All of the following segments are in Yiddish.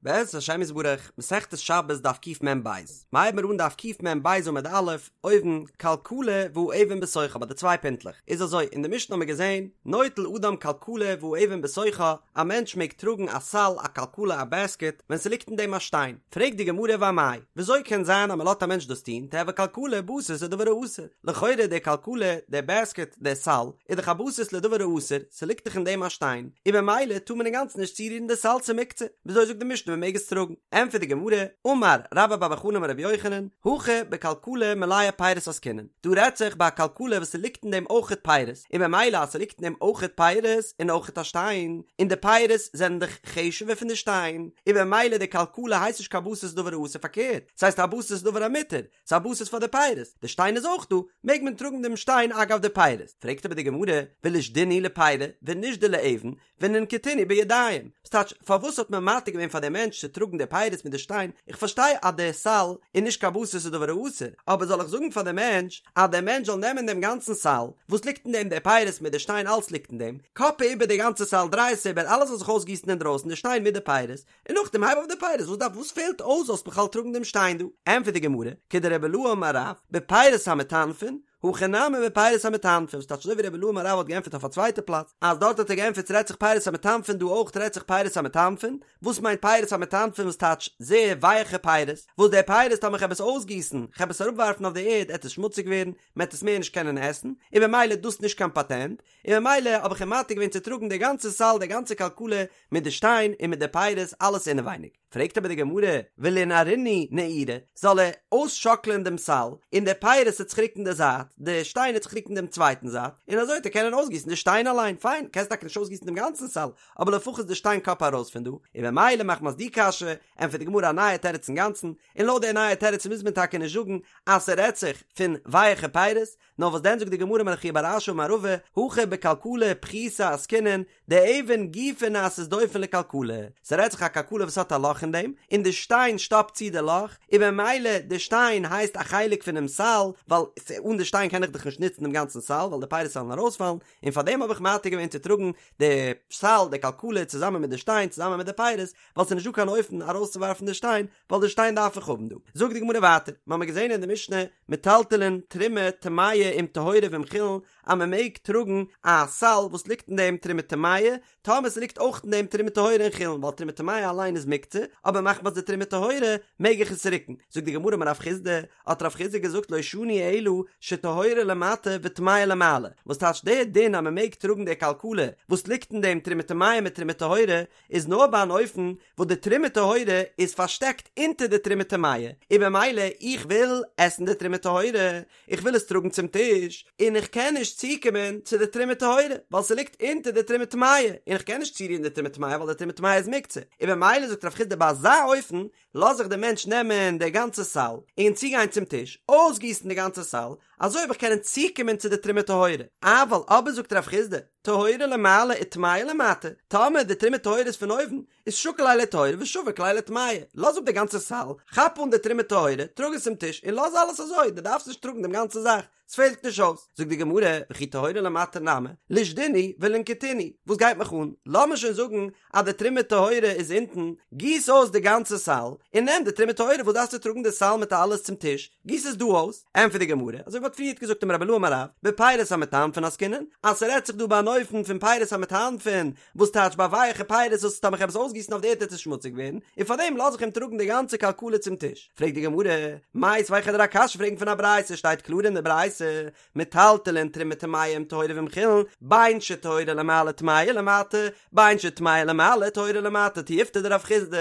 בעזרת השם יתברך, מסכת שבת דף קמ"ב, מ'הייבן מיר אן דף קמ"ב עמוד א', אויבן, כלכלה והאבן בתוכה ביי די צוויי פינטלעך, איז אזוי, אין די משנה האבן מיר געזען, נוטל אדם כלכלה והאבן בתוכה, א מענטש מעג טראגן א סל, א כלכלה, א בעסקעט, ווען ס'ליגט אין דעם א שטיין, פרעגט די גמרא ואמאי, וויאזוי קען זיין אז מ'לאזט א מענטש דאס טון, תיהוי כלכלה בסיס לדבר האסור, לכאורה די כלכלה, די בעסקעט, די סל, איז דאך א בסיס לדבר האסור, ס'ליגט דאך אין דעם א שטיין, און במילא טאר מען אינגאנצן נישט צורירן די סל ס'איז מוקצה, וויאזוי זאגט די משנה מ'מעג עס טראגן? ענטפערט די גמרא, אמר רבה בר בר חנה אמר רבי יוחנן, הכא בכלכלה מלאה פירות עסקינן, דא רעדט זיך ביי א כלכלה וואס ס'ליגט אין דעם אויכעט פירות, און במילא אז ס'ליגט אין דעם אויכעט פירות און אויכעט א שטיין, און די פירות זענען דאך חשוב'ער פון די שטיין, און במילא די כלכלה הייסט נישט קיין בסיס לדבר האסור פארקערט, ס'הייסט א בסיס לדבר המותר, ס'איז א בסיס פאר די פירות, די שטיין איז אויך דא, מעג מען טראגן דעם שטיין אגב די פירות. פרעגט אבער די גמרא, ולישדינהו לפירי ונישדי לאבן, וננקטינהו בידיים, ס'טייטש, פארוואס האט מען מתיר געווען פאר דעם מענטש צו טראגן די פירות מיט די שטיין, איך פארשטיי אז די סל איז נישט קיין בסיס לדבר האסור, אבער זאל איך זאגן פאר דעם מענטש אז דער מענטש זאל נעמען דעם גאנצן סל, וואס ליגט אין דעם די פירות מיט די שטיין אלס ליגט אין דעם, קאפע איבער די גאנצע סל דריי עס איבער אלעס זאל זיך אויסגיסן אינדרויסן די שטיין מיט די פירות, און נאכדעם הייב אויף די פירות, וואס דארף וואס פעלט אויס זאלסט בכלל טראגן דעם שטיין דא? ענטפערט די גמרא, כדרבי אילעא אמר רב, בפירות המטנפין, הכא נמי בפירות המטנפין, וואס טייטש אזוי ווי רבי אילעא אמר רב האט געענטפערט אויף א צווייטע פלאץ, אז דארט האט ער געענטפערט ס'רעדט זיך פירות המטנפין דא אויך רעדט זיך פירות המטנפין, וואס מיינט פירות המטנפין וואס טייטש זייער ווייעכע פירות, וואס די פירות טאמער כ'העב עס אויסגיסן, כ'העב עס אראפווארפן אויף די ערד עט עס שמוציג ווערן, מ'עט עס מער נישט קענען עסן, און במילא דאס נישט קיין פאטענט, און ממילא האב איך אים מתיר געווען צו טראגן די גאנצע סל די גאנצע כלכלה מיט די שטיין און מיט די פירות אלעס אינעווייניג. פרעגט אבער די גמרא, ולינערינהו נעורי, זאל ער אויסשאקלען דעם סל, און די פירות עט זיך רוקן די זייט, די שטיין עט זיך רוקן דעם צווייטן זייט, און אזוי וועט ער קענען אויסגיסן די שטיין אליין, פיין, קענסט טאקע נישט אויסגיסן דעם גאנצן סל, אבער לפחות די שטיין קאפע ארויס פון דא, און ממילא מחמת די קשיא, ענטפערט די גמרא א נייע תירוץ אינגאנצן, און לויט די נייע תירוץ מוז מען טאקע נישט זאגן אז ס'רעדט זיך פון ווייעכע פירות, נאר וואס דען זאגט די גמרא אמר רב חייא בר אשי אמר רבא, הכא בכלכלה פחותה עסקינן, דאבן גופה נעשית דופן לכלכלה, ס'רעדט זיך א כלכלה וואס האט א לאך אין דעם, און די שטיין שטאפט צו די לאך, און במילא די שטיין הייסט א חלק פונעם סל, ווייל אן די שטיין קען איך דאך נישט נוצן דעם גאנצן סל, ווייל די פירות וועלן ארויספאלן, און פארדעם האב איך מתיר געווען צו טראגן די סל, די כלכלה, צוזאמען מיט די שטיין, צוזאמען מיט די פירות, ווייל ס'איז נישט דא קיין אופן ארויסצואווארפן די שטיין, ווייל די שטיין דארף איך האבן דא. זאגט די גמרא ווייטער, מ'האמיר געזען אין די משנה, מטלטלין תרומה טמאה עם טהורה ועם חולין, אז מ'מעג טראגן א סל וואס ליגט אין דעם תרומה טמאה, טאמער ס'ליגט אויך אין דעם תרומה טהורה און חולין, ווייל תרומה טמאה אליין איז מוקצה, אבער מחמת די תרומה טהורה מעג איך עס רוקן. זאגט די גמרא אמר רב חסדא, האט רב חסדא געזאגט לא שנו אלא שטהורה למטה וטמאה למעלה, וואס טייטש דער דין אז מ'מעג טראגן די כלכלה וואס ליגט אין דעם תרומה טמאה מיט תרומה טהורה, איז נאר ביי אן אופן וואס די תרומה טהורה איז פארשטעקט אונטער די תרומה טמאה, און במילא איך וויל עסן די תרומה טהורה, איך וויל עס טראגן צום טיש, און איך קען נישט צוקומען צו די תרומה טהורה, ווייל ס'ליגט אונטער די תרומה טמאה, און איך קען נישט צורירן די תרומה טמאה ווייל די תרומה טמאה איז מוקצה, און במילא זאגט רב חסדא ביי אזא אופן לאז איך דעם מענטש נעמען די גאנצע סל און צוגיין צום טיש, אויסגיסן די גאנצע סל, אזוי וועל איך קענען צוקומען צו די תרומה טהורה, אבל אבער זאגט רב חסדא, טהורה למעלה וטמאה למטה, טאמער די תרומה טהורה איז פון אויבן, איז שקיל ליה לטהורה ושביק ליה לטמאה, לאז אפ די גאנצע סל, כאפ אן די תרומה טהורה, טראג עס צום טיש און לאז אלעס אזוי, דו דארפסט נישט טראגן דעם גאנצע זאך, ס'פעלט נישט אויס. זאגט די גמרא, וכי טהורה למטה נמי, לישדינהו ולינקטינהו, וואס גייט מיך אן, לאמיר שוין זאגן אז די תרומה טהורה איז אונטן, גיס אויס די גאנצע סל, און נעם די תרומה טהורה, וואס דארפסטו טראגן די סל מיט אלעס צום טיש, גיס עס דא אויס, ענטפערט די גמרא, אזוי ווי מ'האט פריערט געזאגט אמר רבי אילעא אמר רב, בפירות המטנפין עסקינן, אז ס'רעדט זיך דא ביי אן אופן פון פירות המטנפין, וואס טייטש ביי ווייעכע פירות וואס טאמער כ'העב עס אויסגיסן אויף די ערד וועט עס שמוציג ווערן, און פארדעם לאז איך אים טראגן די גאנצע כלכלה צום טיש. פרעגט די גמרא, מיתיבי כ'וועל דיר א קשיא פרעגן פון א ברייתא, שטייט קלאר אין די ברייתא, מטלטלין תרומה טמאה עם טהורה ועם חולין, בין שטהורה למעלה טמאה למטה, בין שטמאה למעלה טהורה למטה, תיובתא דרב חסדא,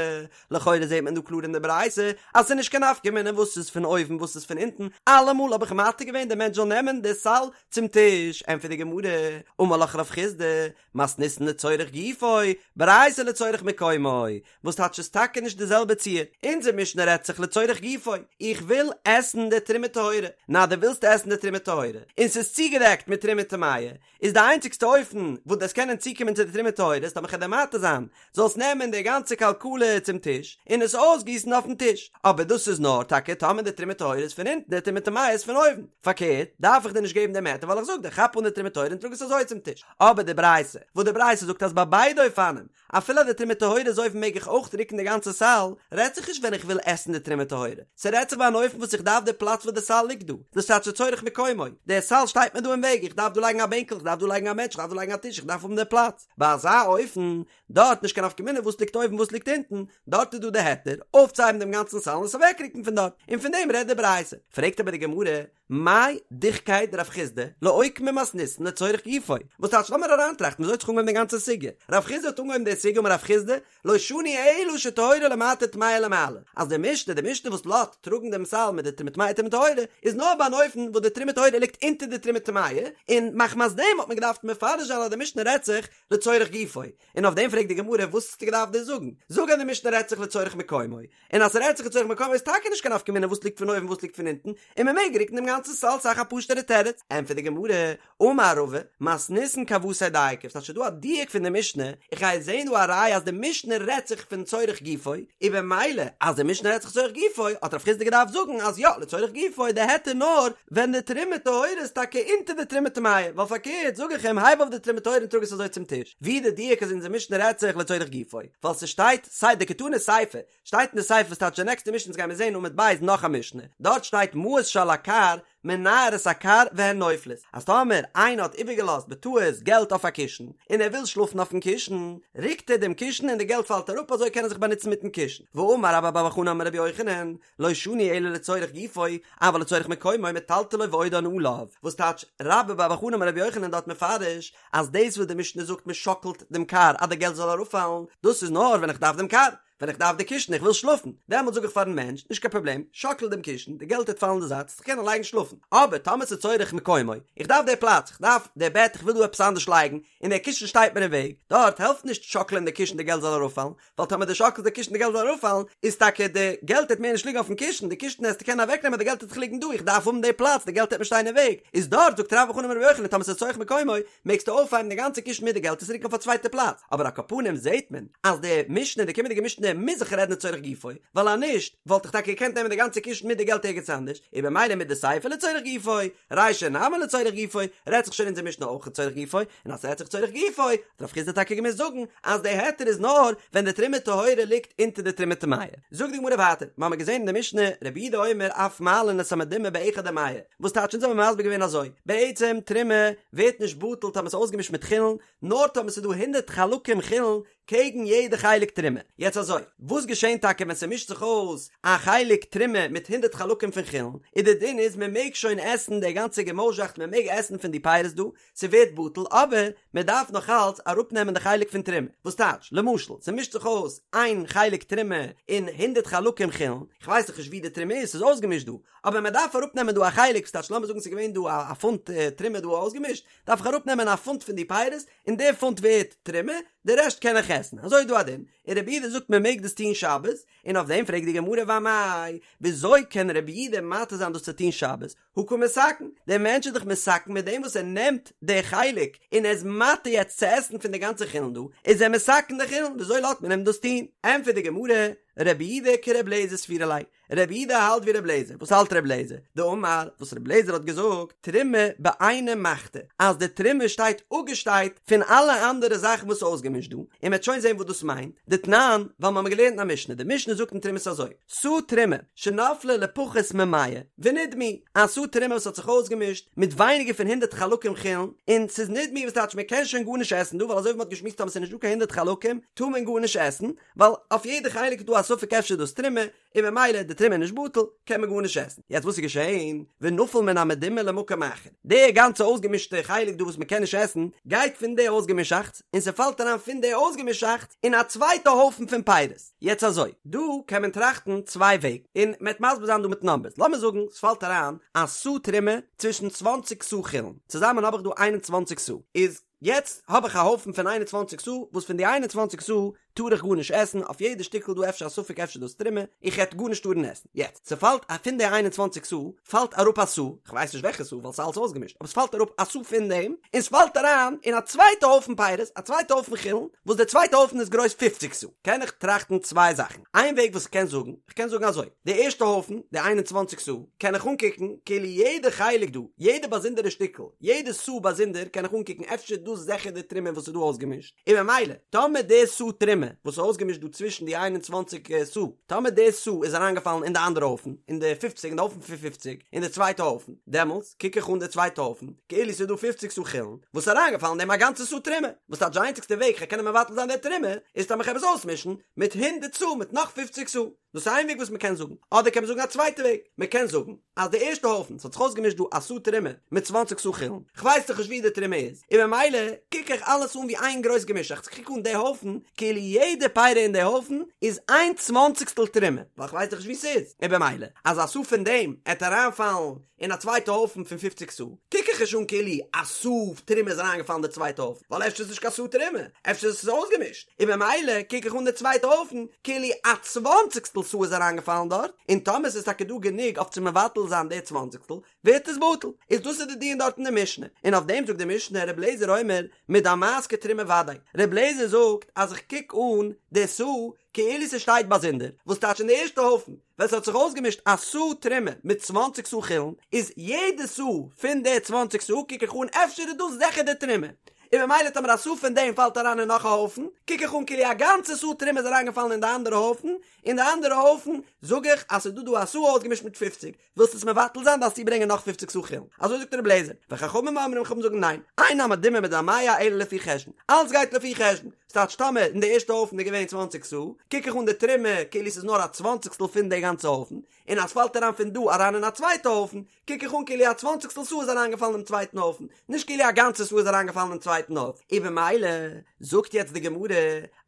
לכאורה זעט מען דא קלאר אין די ברייתא אז ס'איז נישט קיין נפקא מינה וואס איז פון אויבן וואס איז פון אונטן, אלעמאל האב איך מתיר געווען די מענטש זאל נעמען די סל צום טיש, ענטפערט די גמרא, אמר לך רב חסדא, מתניתין לצורך גופו, ברייתא לצורך מקומו, וואס טייטש ס'איז טאקע נישט די זעלבע ציור, אונזער משנה רעדט זיך לצורך גופו, איך וויל עסן די תרומה טהורה, נא דו ווילסט עסן די תרומה טהורה, און ס'איז צוגעדעקט מיט תרומה טמאה, איז די איינציגסטע אופן וואס דו וועסט קענען צוקומען צו די תרומה טהורה איז טאמער כ'וועל דיר מתיר זיין זאלסט נעמען די גאנצע כלכלה צום טיש און עס אויסגיסן אויפן טיש, אבער דאס איז נאר טאקע טאמער די תרומה טהורה איז פון אונטן די תרומה טמאה איז פון אויבן, פארקערט דארף איך דיר נישט געבן דעם היתר ווייל איך זאג דיר כאפ אן די תרומה טהורה און טראג עס אזוי צום טיש. אבער די ברייתא, וואס די ברייתא זאגט אז ביי ביידע אופנים, אפילו אז די תרומה טהורה איז אויבן מעג איך אויך רוקן די גאנצע סל, רעדט זיך נישט ווען איך וויל עסן די תרומה טהורה, ס'רעדט זיך ביי אן אופן וואס איך דארף די פלאץ וואס די סל ליגט דא, דאס טייטש לצורך מקומו, די סל שטייט מיר דא אין וועג, איך דארף דא לייגן א בענקל, איך דארף דא לייגן א מענטש, איך דארף דא לייגן א טיש, איך דארף האבן די פלאץ, ביי אזא אופן, דארט נישט קיין נפקא מינה וואס ליגט אויבן וואס ליגט אונטן, דארט איז דא די היתר אויפצוהייבן דעם גאנצן סל און עס אוועקרוקן פון דארט, און פון דעם רעדט די ברייתא. פרעגט אבער די גמרא, מאי דוחקיה דרב חסדא לאוקמי מתניתין לצורך גופו, וואס טייטש לאמיר אריינטראכטן וויאזוי האט זיך אנגעהויבן די גאנצע סוגיא, רב חסדא האט אנגעהויבן די סוגיא אמר רב חסדא, לא שנו אלא שטהורה למטה טמאה למעלה, אז די משנה, די משנה וואס לאזט טראגן דעם סל מיט די תרומה טמאה תרומה טהורה, איז נאר ביי אן אופן וואס די תרומה טהורה ליגט אונטער די תרומה טמאה, און מחמת דעם האט מען געדארפט מפרש זיין אז די משנה רעדט זיך לצורך גופו, און אויף דעם פרעגט די גמרא וואס האסטו געדארפט דאס זאגן? זאג אז די משנה רעדט זיך לצורך מקומו, און אז ס'רעדט זיך לצורך מקומו איז טאקע נישט קיין נפקא מינה וואס ליגט פון אויבן וואס ליגט פון אונטן, און מ'מעג רוקן דעם גאנצן סל ס'איז דאך א פשוט'ערע תירוץ. ענטפערט די גמרא, אמר רבא, מתניתין כוותיה דייקא, ס'טייטש ס'איז דא א דיוק פון די משנה, איך גיי זעהן דא א ראיה אז די משנה רעדט זיך פון צורך גופו, און במילא אז די משנה רעדט זיך צורך גופו האט רב חסדא געדארפט זאגן אז יא לצורך גופו איז די היתר נאר ווען די תרומה טהורה איז טאקע אונטער די תרומה טמאה, ווייל פארקערט זאג איך אים הייב אויף די תרומה טהורה און טראג עס אזוי צום טיש, ווי די דיוק אז אונזער משנה רעדט זיך לצורך גופו, ווייל ס'שטייט סיי דקתני סיפא, שטייט אין די סיפא וואס טייטש די נעקסטע משנה אונז גיימיר זעהן עמוד ב' נאך א משנה, דארט שטייט מעות שעל הכר מנער את הכר והן נופלות, אז טאמער איינער האט איבערגעלאזט בטעות געלט אויף א קישן, און ער וויל שלאפן אויפן קישן, רוקט ער דעם קישן און די געלט פאלט אראפ אזוי קען ער זיך באנוצן מיטן קישן, ואמר רבה בר בר חנה אמר רבי יוחנן, לא שנו אלא לצורך גופו, אבל לצורך מקומו מטלטלו ועודן עליו, וואס טייטש רבה בר בר חנה אמר רבי יוחנן דארט מפרש, אז דאס וואס די משנה זאגט מען שאקלט דעם כר אז די געלט זאל אראפפאלן, דאס איז נאר ווען איך דארף דעם כר, ווען איך דארף די קישן איך וויל שלאפן, דעמאלט זאג איך פארן מענטש, נישט קיין פראבלעם, שאקל דעם קישן, די געלט וועט פאלן אין די זייט, זיך קענען לייגן שלאפן. אבער טאמער ס'איז צורך מקומו, איך דארף די פלאץ, איך דארף די בעט, איך וויל דא עפעס אנדערש לייגן, און דער קישן שטייט מיר אין וועג, דארט העלפט נישט שאקלען די קישן די געלט זאל אראפפאלן, ווייל טאמער דו שאקלסט די קישן די געלט זאל אראפפאלן, איז טאקע די געלט וועט מער נישט ליגן אויפן קישן, די קישן העסטו קענען אוועקנעמען די געלט וועט דאך ליגן דא, איך דארף האבן די פלאץ, די געלט וועט מיר שטיין אין וועג, איז דארט זאגט רבה בר בר חנה אמר רבי יוחנן טאמער ס'איז צורך מקומו, מעגסטו אויפהייבן די גאנצע קישן מיט די געלט עס רוקן אויף א צווייטע פלאץ, אבער על כל פנים זעהט מען אז די משנה די קומענדיגע משנה מוז זיך רעדן לצורך גופו, ווייל אז נישט וואלט איך טאקע געקענט נעמען די גאנצע קישן מיט די געלט ערגעץ אנדערש, און במילא מדסיפא לצורך גופו, רישא נמי לצורך גופו, רעדט זיך שוין אונזער משנה אויך לצורך גופו, און אז ס'רעדט זיך לצורך גופו, האט רב חסדא טאקע געמוזט זאגן אז די היתר איז נאר ווען די תרומה טהורה ליגט אונטער די תרומה טמאה. זאגט די גמרא ווייטער, מ'האמיר געזען אין די משנה, רבי יהודה אומר אף מעלין את המדומע באחד ומאה, וואס טייטש אונז האבן מסביר געווען אזוי, בעצם תרומה ווערט נישט בטל טאמער ס'איז אויסגעמישט מיט חולין, נאר טאמער ס'איז דא הונדרעט חלקים חולין קעגן יעדע חלק תרומה. יעצט אזוי, וואס געשענט טאקע ווען ס'מישט זיך אויס א חלק תרומה מיט הונדרעט חלקים פון חולין, איז די דין איז מ'מעג שוין עסן די גאנצע געמויזשאכט מ'מעג עסן פון די פירות דא, ס'ווערט בטל, אבער מ'דארף נאך אלץ אראפנעמען די חלק פון תרומה, וואס טייטש, למשל, ס'מישט זיך אויס איין חלק תרומה און הונדרעט חלקים חולין, כ'ווייס דאך נישט ווי די תרומה איז, ס'איז אויסגעמישט דא, אבער מען דארף אראפ נעמען דא א חלק, ס'טייטש לאמיר זאגן ס'איז געווען דא א פונט תרומה דא אויסגעמישט, דארף איך אראפ נעמען א פונט פון די פירות, און די פונט ווערט תרומה, די רעשט קען איך עסן, אזוי איז דא א דין, און רבי יהודה זאגט מען מעג דאס טון שבת, און אויף דעם פרעגט די גמרא ואמאי, וויאזוי קען רבי יהודה מתיר זיין דאס צו טון שבת, הא קא מתקן, דער מענטש איז דאך מתקן מיט דעם וואס ער נעמט די חלק און ער איז מתיר יעצט צו עסן פון די גאנצע חולין דא, איז ער מתקן די חולין, וויאזוי לאזט מען אים דאס טון? ענטפערט די גמרא, רבי יהודה כרבי אליעזר סבירא ליה, רבי יהודה האלט ווי רבי אליעזר, וואס האלט רבי אליעזר? דאמר, וואס רבי אליעזר האט געזאגט, תרומה בעינא מחתא, אז די תרומה שטייט אפגעשטייט פון אלע אנדערע זאכן וואס איז אויסגעמישט דא, און מ'וועט שוין זען וואס דאס מיינט, דתנן, ווייל מ'האמיר געלערנט אין א משנה, די משנה זאגט אין תרומות אזוי, סאה תרומה, שנפלה לפחות ממאה, ונדמעו, א סאה תרומה וואס האט זיך אויסגעמישט מיט ווייניגער פון הונדערט חלקים חולין, און ס'איז נדמעו וואס טייטש מ'קען שוין גארנישט עסן דא, ווייל אזוי ווי מ'האט געשמועסט טאמער ס'איז נישט דא קיין הונדערט חלקים טאר מען גארנישט עסן, ווייל אויף יעדע חלק איז דא א ספק אפשר איז דאס תרומה, און ממילא די תרומה איז נישט בטל, קען מען גארנישט עסן. יעצט וואס איז געשען? ונפל מן המדומע למקום אחר. די גאנצע אויסגעמישטע חלק דא וואס מען קען נישט עסן, גייט פון די אויסגעמישאכטס, און ס'פאלט אריין פון די אויסגעמישאכטס אין א צווייטע הויפן פון פירות. יעצט אזוי, דא קען מען טראכטן צוויי וועגן, און מ'עט מסביר זיין דא מיט נאמבערס. לאמיר זאגן ס'פאלט אריין א סאה תרומה צווישן צוואנציג סאה חולין, צוזאמען האב איך דא איין און צוואנציג סאה, איז יעצט האב איך א הויפן פון איין און צוואנציג סאה, וואס פון די איין און צוואנציג סאה. טאר איך גארנישט עסן, אויף יעדע שטיקל דא אפשר א ספק אפשר דאס תרומה, איך העט גארנישט טארן עסן. יעצט, ס'פאלט א פון די 21 סאה פאלט אראפ א סאה, כ'ווייס נישט וועלכע סאה ווייל ס'איז אלס אויסגעמישט, אבער ס'פאלט אראפ א סאה פון דעם, און ס'פאלט אריין אין א צווייטע הויפן פירות, א צווייטע הויפן חולין, וואס די צווייטע הויפן איז גרויס פופציג סאה. קען איך טראכטן צוויי זאכן. איין וועג וואס כ'קען זאגן, כ'קען זאגן אזוי, די ערשטע הויפן, די 21 סאה, קען איך אנקוקן כאילו יעדע חלק דא, יעדע באזונדערע שטיקל, יעדע סאה באזונדער קען איך אנקוקן אפשר דאס זעכער די תרומה וואס איז דא אויסגעמישט, און ממילא, טאמער די סאה תרומה וואס איז אויסגעמישט דא צווישן די 21 סאה, טאמער די סאה איז אריינגעפאלן אין די אנדערע הויפן, אין די פופציג, אין די הויפן פון פופציג, אין די צווייטע הויפן, דעמאלטס קוק איך אן די צווייטע הויפן, כאילו ס'איז דא פופציג סאה חולין, וואס איז אריינגעפאלן אין דעם א גאנצע סאה תרומה, וואס טייטש די איינציגסטע וועג כ'קען קענען מבטל זיין די תרומה, איז טאמער כ'העב עס אויסמישן מיט הונדערט סאה מיט נאך פופציג סאה. דאס איז איין וועג וואס מ'קען זאגן. אדער קען מען זאגן א צווייטע וועג, מ'קען זאגן, אז די ערשטע הויפן, ס'האט זיך אויסגעמישט דא א סאה תרומה מיט צוואנציג סאה חולין, כ'ווייס דאך נישט ווי די תרומה איז, און ממילא קוק איך אלעס אן ווי איין גרויס געמישאכטס, כ'קוק אן די הויפן כאילו יעדע פירא אין די הויפן איז איין צוואנציגסטל תרומה, ווייל כ'ווייס דאך נישט ווי ס'איז, און במילא אז א סאה פון דעם עט אריינפאלן אין א צווייטע הויפן פון פופציג סאה, קוק איך נישט אן כאילו א סאה תרומה איז אריינגעפאלן אין די צווייטע הויפן, ווייל אפשר איז נישט קיין סאה תרומה, אפשר איז עס אויסגעמישט, און במילא קוק איך אן די צווייטע הויפן כאילו א צוואנציגסטל סאה איז אריינגעפאלן דארט, און טאמער ס'איז טאקע דא גענוג אויף צו מבטל זיין די צוואנציגסטל, ווערט עס בטל. איז דאס איז די דיון דארט אין די משנה, און אויף דעם זאגט די משנה ר' אליעזר אומר מדמעת כתרומה ודאי, ר' אליעזר זאגט אז איך קוק אן די סאה כאילו ס'שטייט באזונדער, וואס טייטש אין די ערשטע הויפן ווען ס'האט זיך אויסגעמישט א סאה תרומה מיט צוואנציג סאה חולין, איז יעדע סאה פון די צוואנציג סאה קוק איך אן אפשר איז דאס זיכער די תרומה, און ממילא טאמער א סאה פון דעם פאלט אריין אין נאך א הויפן, קוק איך אן כאילו א גאנצע סאה תרומה איז אריינגעפאלן אין די אנדערע הויפן, אין די אנדערע הויפן זאג איך אז ס'איז דא דא א סאה אויסגעמישט מיט פופציג, ווילסט עס מבטל זיין דארפסטו ברענגען נאך פופציג סאה חולין, אזוי זאגט רבי אליעזר, וחכמים אומרים חכמים זאגן ניין, אין המדומה מדמע אלא לפי חשבון, אלץ גייט לפי חשבון, ס'טייטש טאמער אין די ערשטע הויפן איז געווען צוואנציג סאה, קוק איך אן די תרומה כאילו ס'איז נאר א צוואנציגסטל פון די גאנצע הויפן, און אז ס'פאלט אריין פון דא אריין אין א צווייטע הויפן, קוק איך אן כאילו א צוואנציגסטל סאה איז אריינגעפאלן אינעם צווייטן הויפן, נישט כאילו א גאנצע סאה איז אריינגעפאלן אין צווייטן הויפן. און במילא זאגט יעצט די גמרא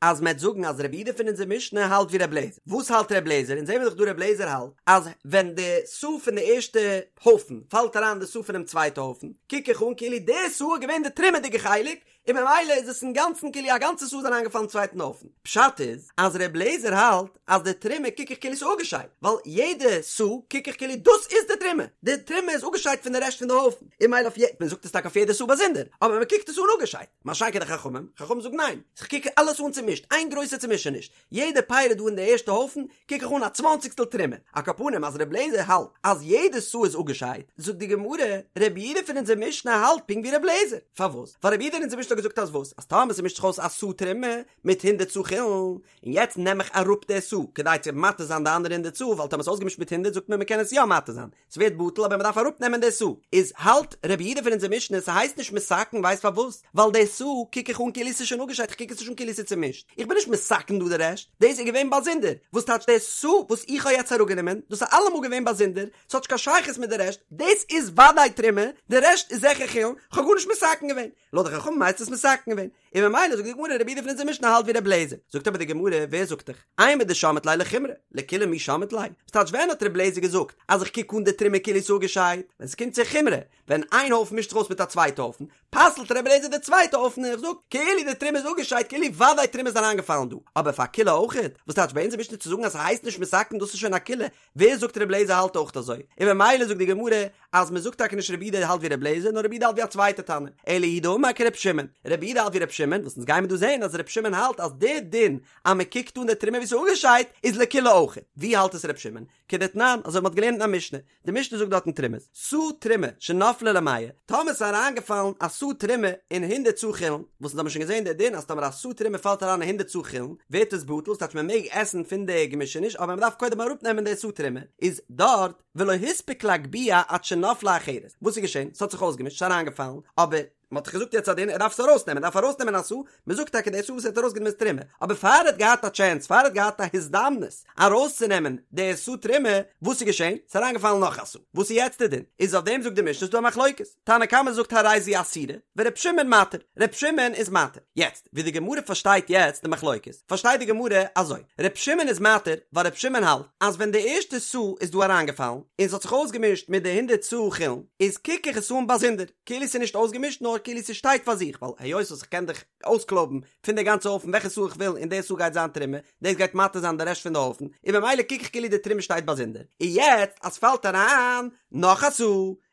אז מ'עט זאגן אז רבי יהודה פון אונזער משנה האלט ווי רבי אליעזר. וואס האלט רבי אליעזר? אונז זעמיר דאך דא רבי אליעזר האלט אז ווען די סאה פון די ערשטע הויפן פאלט אריין אין די סאה פונעם צווייטע הויפן, קוק איך אן כאילו די סאה איז געווען די תרומה'דיגע חלק, און ממילא איז עס אינגאנצן כאילו א גאנצע סאה איז אריינגעפאלן אין צווייטן הויפן. פשט איז אז ר' לעזער האלט אז די תרומה קוק איך כאילו ס'איז אפגעשיידט, ווייל יעדע סאה קוק איך כאילו דאס איז די תרומה, די תרומה איז אפגעשיידט פון די רעשט פון די הויפן, און ממילא אויף יעדע, מען זאגט עס טאקע אויף יעדע סאה באזונדער, אבער מען קוקט עס אן אפגעשיידט, מה שאין כן די חכמים, חכמים זאגן ניין, איך קוק אלעס אן צומישט, איין גרויסע צומישעניש, יעדע פירא דא אין די ערשטע הויפן קוק איך אן א צוואנציגסטל תרומה, על כל פנים אז ר' לעזער האלט אז יעדע סאה איז אפגעשיידט, זאגט די גמרא, רבי יהודה פון אונזער משנה האלט פונקט ווי ר' לעזער, פארוואס? ווייל רבי יהודה אין אונזער משנה האט געזאגט אז וואס? אז טאמער ס'מישט זיך אויס א סאה תרומה מיט הונדערט סאה חולין, און יעצט נעם איך אראפ די סאה כדי צו מתיר זיין די אנדערע הונדערט סאה, ווייל טאמער ס'איז אויסגעמישט מיט הונדערט זאגט מען מ'קען עס יא מתיר זיין, ס'ווערט בטל אבער מ'דארף אראפ נעמען די סאה, איז האלט רבי יהודה פון אונזער משנה ס'הייסט נישט מתקן ווייסט פארוואס? ווייל די סאה קוק איך אן כאילו ס'איז שוין אפגעשיידט כ'קוק עס נישט אן כאילו ס'איז צומישט, איך בין נישט מתקן דא די רעשט, דאס איז געווען באזונדער, וואס טייטש די סאה וואס איך האב יעצט אראפגענומען, דאס איז אלעמאל געווען באזונדער, ס'האט נישט קיין שייכות מיט די רעשט, דאס איז וודאי תרומה, די רעשט איז זיכער חולין, כ'האב גארנישט מתקן געווען, לויט די חכמים הייסט עס מתקן געווען, און ממילא זאגט די גמרא רבי יהודה פון אונזער משנה האלט ווי רבי אליעזר, זאגט אבער די גמרא ווער זאגט דיך, אימר דשמעת ליה לחומרא, לקולא מי שמעת ליה, וואס טייטש ווען האט רבי אליעזר געזאגט אז איך קוק אן די תרומה כאילו ס'איז אפגעשיידט, ווען ס'קומט צו חומרא, ווען איין הויפן מישט זיך אויס מיט א צווייטע הויפן, פסל'ט רבי אליעזר די צווייטע הויפן און ער זאגט כאילו די תרומה איז אפגעשיידט כאילו וודאי תרומה איז אריינגעפאלן דא, אבער פאר קולא אויכעט, וואס טייטש ביי אונזער משנה צו זאגן אז ס'הייסט נישט מתקן דאס איז שוין א קולא, ווער זאגט רבי אליעזר האלט אויך אזוי? און ממילא זאגט די גמרא אז מען זאגט טאקע נישט רבי יהודה האלט ווי רבי אליעזר נאר רבי יהודה האלט ווי א צווייטע תנא, אלא הוא דאמר כרבי שמעון, רבי יהודה האלט ווי רבי שמעון, וואס אונז גיימער דא זעהן אז רבי שמעון האלט אז די דין אז מען קוקט אן די תרומה ווי ס'איז אפגעשיידט איז לקולא אויך, ווי האלט עס רבי שמעון? כדתנן, אזוי ווי מ'האט געלערנט אין א משנה, די משנה זאגט דארט אין תרומות, סאה תרומה שנפלה למאה, טאמער ס'איז אריינגעפאלן א סאה תרומה אין הונדערט סאה חולין, וואס אונז האבן שוין געזען די דין אז טאמער א סאה תרומה פאלט אריין אין הונדערט סאה חולין ווערט עס בטל, ס'טייטש מען מעג עסן פון די געמישעניש אבער מען דארף קודם אראפנעמען די סאה תרומה, איז דארט ולא הספיק להגביה עד שנפלה אחרת, וואס איז געשען? ס'האט זיך אויסגעמישט, ס'איז אריינגעפאלן, אבער. מען האט דאך געזאגט יעצט א דין ער דארף עס ארויסנעמען, ער דארף ארויסנעמען א סאה, מען זאגט טאקע די סאה וואס ער האט ארויסגענומען איז תרומה, אבער פאר ער האט געהאט א טשענס, פאר ער האט געהאט א הזדמנות ארויסצונעמען די סאה תרומה, וואס איז געשען? ס'איז אריינגעפאלן נאך א סאה, וואס איז יעצט די דין? איז אויף דעם זאגט די משנה ס'איז דא א מחלוקת, תנא קמא זאגט הרי זו אסורה, ור' שמעון מתיר, ר' שמעון איז מתיר, יעצט ווי די גמרא פארשטייט יעצט די מחלוקת, פארשטייט די גמרא אזוי, ר' שמעון איז מתיר ווייל ר' שמעון האלט אז ווען די ערשטע סאה איז דא אריינגעפאלן און ס'האט זיך אויסגעמישט מיט די הונדערט סאה חולין, איז קוק איך עס אן באזונדער, כאילו ס'איז נישט אויסגעמישט נאר. נאר כאילו ס'שטייט פאר זיך, ווייל היות וואס איך קען דאך אויסקלויבן פון די גאנצע הויפן וועלכע סאה איך וויל און די סאה גייט זיין תרומה, דאס גייט מתיר זיין די רעשט פון די הויפן, און במילא קוק איך כאילו די תרומה שטייט באזונדער, און יעצט אז ס'פאלט אריין נאך א סאה,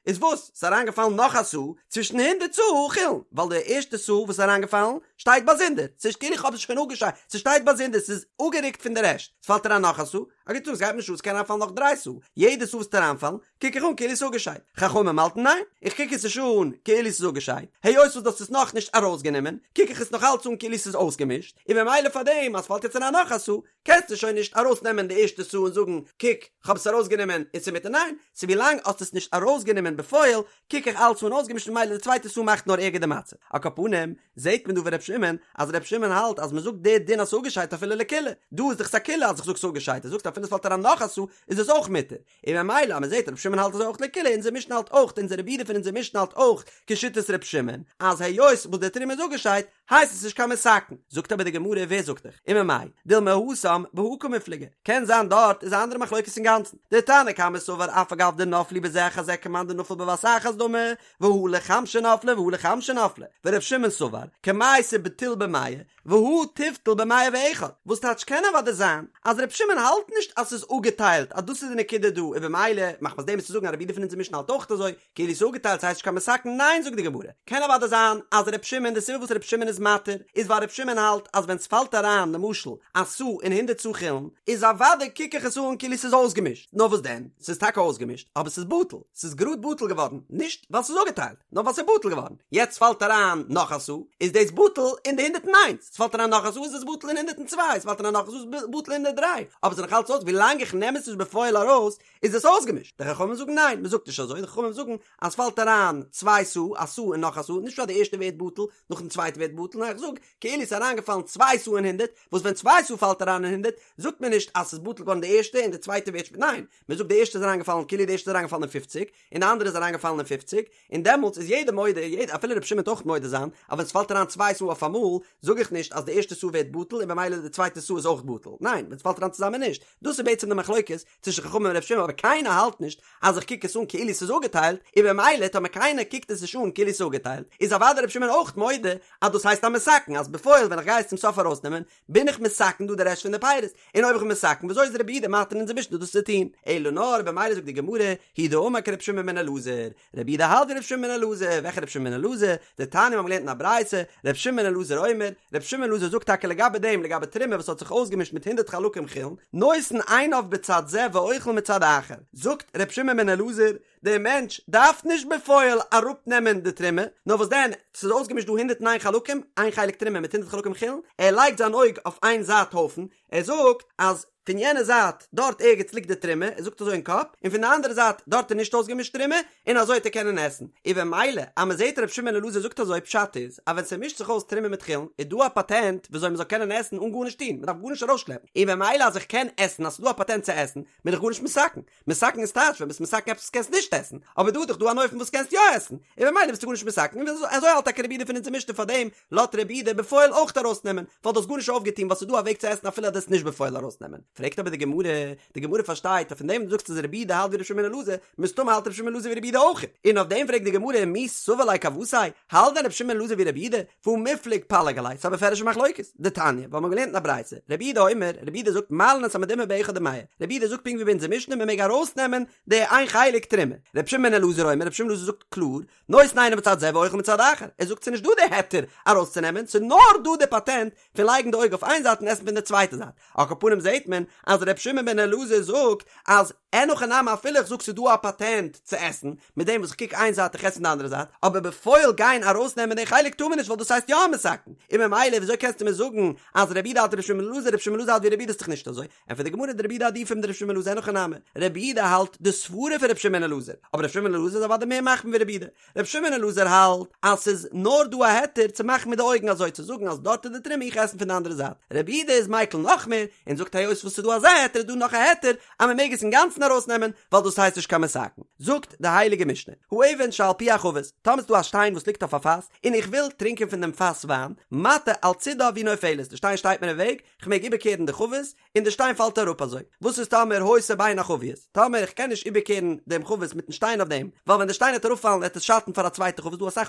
איז וואס? ס'איז אריינגעפאלן נאך א סאה צווישן הונדערט סאה חולין, ווייל די ערשטע סאה וואס איז אריינגעפאלן שטייט באזונדער, ס'נישט כאילו איך האב עס שוין אפגעשיידט, ס'שטייט באזונדער, ס'איז אפגערוקט פון די רעשט, ס'פאלט אריין נאך א סאה, א גוט טאג, ס'גייט מיר נישט אן, ס'קען אריינפאלן נאך דריי סאה, יעדע סאה וואס וועט אריינפאלן, קוק איך אן כאילו ס'איז אפגעשיידט, חכמים האלטן ניין, איך קוק עס נישט אן כאילו ס'איז אפגעשיידט, היות וואס דו האסט עס נאכנישט ארויסגענומען, קוק איך עס נאך אלץ אן כאילו ס'איז אויסגעמישט, און במילא פארדעם אז ס'פאלט יעצט אריין נאך א סאה, קענסטו שוין נישט ארויסנעמען די ערשטע סאה און זאגן, קוק, כ'האב עס ארויסגענומען און ס'איז מותר, ניין, ס'איז ווילאנג האסט עס נישט ארויסגענומען בפועל, קוק איך אלץ אן אויסגעמישט און ממילא די צווייטע סאה מאכט נאר ערגער די מצב. על כל פנים, זעהט מען דא ווי ר' שמעון, אז ר' שמעון האלט אז מ'זאגט די דין אז ס'איז אפגעשיידט אפילו לקולא, דא איז דאך ס'א קולא אז איך זאג ס'איז אפגעשיידט, ער זאגט אפילו ס'פאלט אריין נאך א סאה איז עס אויך מותר, און ממילא אז מ'זעהט ר' שמעון האלט אזוי אויך לקולא, אונזער משנה האלט אויך, אונזער רבי יהודה פון אונזער משנה האלט אויך כשיטת ר' שמעון, אז היות וואס די תרומה איז אפגעשיידט, הייסט עס נישט קיין מתקן. זאגט אבער די גמרא ווער זאגט דיך? וממאי דילמא התם בהא קמיפלגי, קען זיין דארט איז א אנדערע מחלוקת אינגאנצן, דתנא קמא סבר אף על גב דנפלו בזה אחר זה כמאן דנפל בבת אחת דמי, והא לחמשא נפלי והא לחמשא נפלי, ור' שמעון סבר קמייתא בטיל במאה והא תיבטיל במאה ואחד, וואס טייטש קען אוודאי זיין אז ר' שמעון האלט נישט אז ס'איז אפגעטיילט אז דאס איז די נקודה דא און במילא מחמת דעם איז צו זאגן אז רבי יהודה פון אונזער משנה האלט אויך אזוי, כאילו ס'איז אפגעטיילט ס'הייסט נישט קיין מתקן, ניין זאגט די גמרא, קען אוודאי זיין אז ר' שמעון די סיבה וואס ר' שמעון איז מתיר איז ווייל ר' שמעון האלט אז ווען ס'פאלט אריין למשל א סאה אין הונדערט סאה חולין איז אוודאי קוק איך עס אן כאילו ס'איז אויסגעמישט, נאר וואס דען ס'איז טאקע אויסגעמישט אבער ס'איז בטל, ס'איז גראד בטל געווארן נישט ווייל ס'איז אפגעטיילט נאר ווייל ס'איז בטל געווארן, יעצט פאלט אריין נאך א סאה איז דאס בטל אין די הונדערט און איינס, ס'פאלט אריין נאך א סאה איז עס בטל אין הונדערט און צוויי, ס'פאלט אריין נאך א סאה איז בטל אין הונדערט דריי, אבער ס'איז נאך אלץ אויס ווילאנג איך נעם עס נישט בפועל ארויס איז עס אויסגעמישט? די חכמים זאגן ניין, מען זאגט נישט אזוי, די חכמים זאגן אז ס'פאלט אריין צוויי סאה, א סאה און נאך א סאה, נישט פשט די ערשטע ווערט בטל, נאכדעם די צווייטע ווערט בטל, נאר איך זאג, כאילו ס'איז אריינגעפאלן צוויי סאה אין הונדערט, וואס ווען צוויי סאה פאלט אריין אין הונדערט, זאגט מען נישט אז ס'איז בטל געווארן די ערשטע און די צווייטע ווערט שפעטער, ניין, מען זאגט די ערשטע איז אריינגעפאלן כאילו די ערשטע איז אריינגעפאלן אין פופציג, און די אנדערע איז אריינגעפאלן אין פופציג, און דעמאלטס איז יעדער מודה, יעדער, אפילו רבי שמעון וועט אויך מודה זיין, אז ווען ס'פאלט אריין צוויי סאה אויפאמאל, זאג איך נישט אז די ערשטע סאה ווערט בטל און במילא די צווייטע סאה איז אויך בטל, ניין, ווען ס'פאלט אריין צוזאמען נישט, דאס איז בעצם די מחלוקת צווישן חכמים און ר' שמעון אבער קיינער האלט נישט אז איך קוק עס אן כאילו ס'איז אפגעטיילט און במילא טאמער קיינער קוקט עס נישט אן כאילו ס'איז אפגעטיילט איז אוודאי ר' שמעון אויך מודה אז דאס הייסט א מתקן אז בפועל ווען איך גיי עס צום סוף ארויסנעמען בין איך מתקן דא די רעשט פון די פירות און אויב איך בין מתקן וויאזוי איז רבי יהודה מתיר אונזער משנה דאס צו טון אלא נאר במילא זאגט די גמרא הוא דאמר כר' שמעון בן אלעזר רבי יהודה האלט ווי ר' שמעון בן אלעזר, וועלכע ר' שמעון בן אלעזר? דתניא מיר האבן געלערנט אין א ברייתא, ר' שמעון בן אלעזר אומר, ר' שמעון בן אלעזר זאגט טאקע לגבי דעם, לגבי תרומה וואס האט זיך אויסגעמישט מיט הונדערט חלקים חולין, נותן עיניו בצד זה ואוכל מצד אחר, זאגט ר' שמעון בן אלעזר, דער מענטש דארף נישט בפועל אראפנעמען די תרומה, נאר וואס דען, ס'איז אויסגעמישט דא הונדערט און איין חלקים, איין חלק תרומה מיט הונדערט חלקים חולין, ער לייגט זיין אויג אויף איין זייט הויפן, ער זאגט אז פון יענע זייט דארט ערגעץ ליגט די תרומה, ער זאגט אזוי אין קאפ, און פון די אנדערע זייט דארט איז נישט אויסגעמישט תרומה, און אזוי וועט ער קענען עסן. און במילא אז מען זעט ר' שמעון בן אלעזר זאגט אזוי פשט איז אז ווען ס'מישט זיך אויס תרומה מיט חולין איז דא א פאטענט וויאזוי מען זאל קענען עסן אן גארנישט טון, מען דארף גארנישט ארויסשלעפן, און במילא אז איך קען עסן אז ס'איז דא א פאטענט צו עסן, בין איך גארנישט מתקן. מתקן איז טייטש ווען ביסט מתקן עפעס וואס קענסט נישט עסן, אבער דא איז דאך דא אן אופן וואס קענסט יא עסן, און במילא ביסטו גארנישט מתקן, און אזוי האלט טאקע רבי יהודה פון אונזער משנה פארדעם לאזט רבי יהודה בפועל אויך ארויסנעמען, ווייל דו האסט גארנישט אויפגעטון ווייל ס'איז דא א וועג צו עסן אפילו אז דו עסט נישט בפועל ארויסנעמען. פרעגט אבער די גמרא, די גמרא פארשטייט אז פון דעם וואס דו זאגסט אז רבי יהודה האלט ווי רבי שמעון בן אלעזר, מסתמא האלט רבי שמעון בן אלעזר ווי רבי יהודה אויך, און אויף דעם פרעגט די גמרא מי סבר ליה כוותיה, האלט דען רבי שמעון בן אלעזר ווי רבי יהודה, והא מיפלג פליג עליה, ס'איז א בפירוש'ע מחלוקת, דתניא, ווייל מ'האט געלערנט אין א ברייתא, רבי יהודה אומר, רבי יהודה זאגט מעלין את המדומע באחד ומאה, רבי יהודה זאגט פונקט ווי ביי אונזער משנה מ'מעג ארויסנעמען די איין חלק תרומה, רבי שמעון בן אלעזר אומר, רבי שמעון בן אלעזר זאגט קלאר, נותן עיניו בצד זה ואוכל מצד אחר, ער זאגט ס'איז נישט דא די היתר ארויסצונעמען, ס'איז נאר דא די פאטענט פון לייגן די אויג אויף איין זייט און עסן פון די צווייטע זייט, על כל פנים זעהט מען אז ר' שמעון בן אלעזר זאגט אז אין הכי נמי אפילו איך זאג ס'איז דא א פאטענט צו עסן, מיט דעם וואס איך קוק איין זייט איך עס פון די אנדערע זייט, אבער בפועל גיין ארויסנעמען די חלק טאר מען נישט ווייל דאס הייסט יא א מתקן, און ממילא וויאזוי קענסטו מיר זאגן אז רבי יהודה האלט ווי ר' שמעון בן אלעזר, ר' שמעון בן אלעזר האלט ווי רבי יהודה איז דאך נישט אזוי, ענטפערט די גמרא דרבי יהודה עדיפא מדר' שמעון בן אלעזר אין הכי נמי, רבי יהודה האלט די סברה פון ר' שמעון בן אלעזר, אבער ר' שמעון בן אלעזר איז אוודאי מער מחמיר ווי רבי יהודה, ר' שמעון בן אלעזר האלט אז ס'איז נאר דא א היתר צו מאכן מיט די אויגן אזוי צו זאגן אז דארט איז די תרומה איך עסן פון די אנדערע זייט, רבי יהודה איז מיקל נאך נאך מער, און זאגט היות וואס ס'איז דא אזא היתר איז דא נאך א היתר אז מ'מעג עס אינגאנצן ארויסנעמען ווייל דאס הייסט נישט קיין מתקן. זאגט די הייליגע משנה, האבן שעל פי החבית, טאמער ס'איז דא א שטיין וואס ליגט אויף א פאס, און איך וויל טרינקען פון דעם פאס וויין, מטה על צידה והיא נופלת, די שטיין שטייט מיר אין וועג, כ'מעג איבערקערן די חבית, און די שטיין פאלט אראפ אזוי. וואס איז טאמער היתה בין החביות? טאמער איך קען נישט איבערקערן דעם חבית מיטן שטיין אויף דעם, ווייל ווען די שטיין וועט אראפפאלן וועט עס שאטן פאר א צווייטע חבית, דא אסאך